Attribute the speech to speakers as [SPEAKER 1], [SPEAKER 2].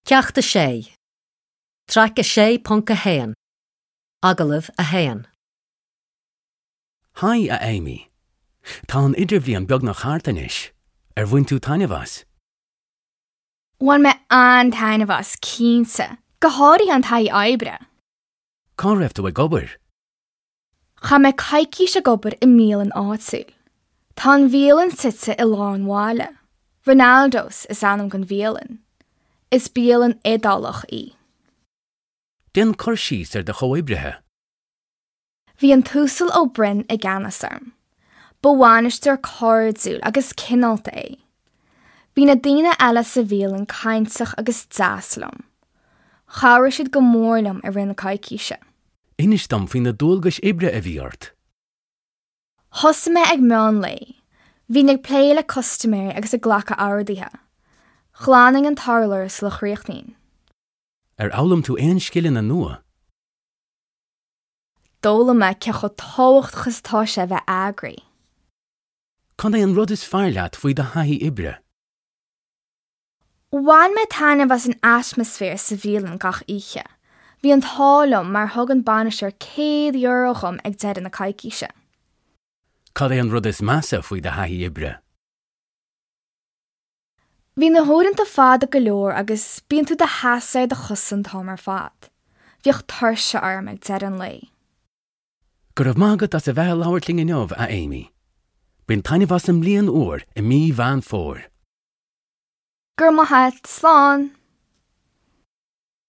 [SPEAKER 1] Ceacht 6, Traic 6.1, Agallamh 1.
[SPEAKER 2] Haigh, a Amy. Tá an idirbhliain beagnach thart anois. Ar bhain tú taitneamh as?
[SPEAKER 3] Bhain mé an-taitneamh as, cinnte. Go háirithe an taithí oibre.
[SPEAKER 2] Cá raibh tú ag obair?
[SPEAKER 3] Chaith mé coicís ag obair i mbialann áitiúil. Tá an bhialann suite i lár an bhaile. Ronaldo's is ainm don bhialann. Is bialann Iodálach í.
[SPEAKER 2] Déan cur síos ar do chomhoibrithe.
[SPEAKER 3] Bhí an tUasal Ó Broin i gceannas orm. Ba bhainisteoir cairdiúil agus cineálta é. Bhí na daoine eile sa bhialann cainteach agus deas liom. Chabhraigh siad go mór liom i rith na coicíse.
[SPEAKER 2] Inis dom faoi na dualgais oibre a bhí ort.
[SPEAKER 3] Thosaigh mé ag meán lae. Bhínn ag plé le custaiméirí agus ag glacadh orduithe. Ghlanfainn an t-urlár sula chríochnaínn.
[SPEAKER 2] Ar fhoghlaim tú aon scileanna nua?
[SPEAKER 3] D'fhoghlaim mé cé chomh tábhachtach is atá sé a bheith eagraithe.
[SPEAKER 2] Cad é an rud is fearr leat faoi do thaithí oibre?
[SPEAKER 3] Bhain mé taitneamh as an atmaisféar sa bhialann gach oíche. Bhí an t-ádh liom mar thug an bainisteoir €100 dhom ag deireadh na coicíse.
[SPEAKER 2] Cad é an rud is measa faoi do thaithí oibre?
[SPEAKER 3] Bhí na huaireanta fada go leor agus bíonn tú i do sheasamh ar do chosa an t-am ar fad. Bhíodh tuirse orm ag deireadh an lae.
[SPEAKER 2] Go raibh maith agat as a bheith ag labhairt linn inniu, a Amy. Bain taitneamh as an mbliain úr i mí Mheán Fómhair.
[SPEAKER 3] Go raibh maith agat, slán!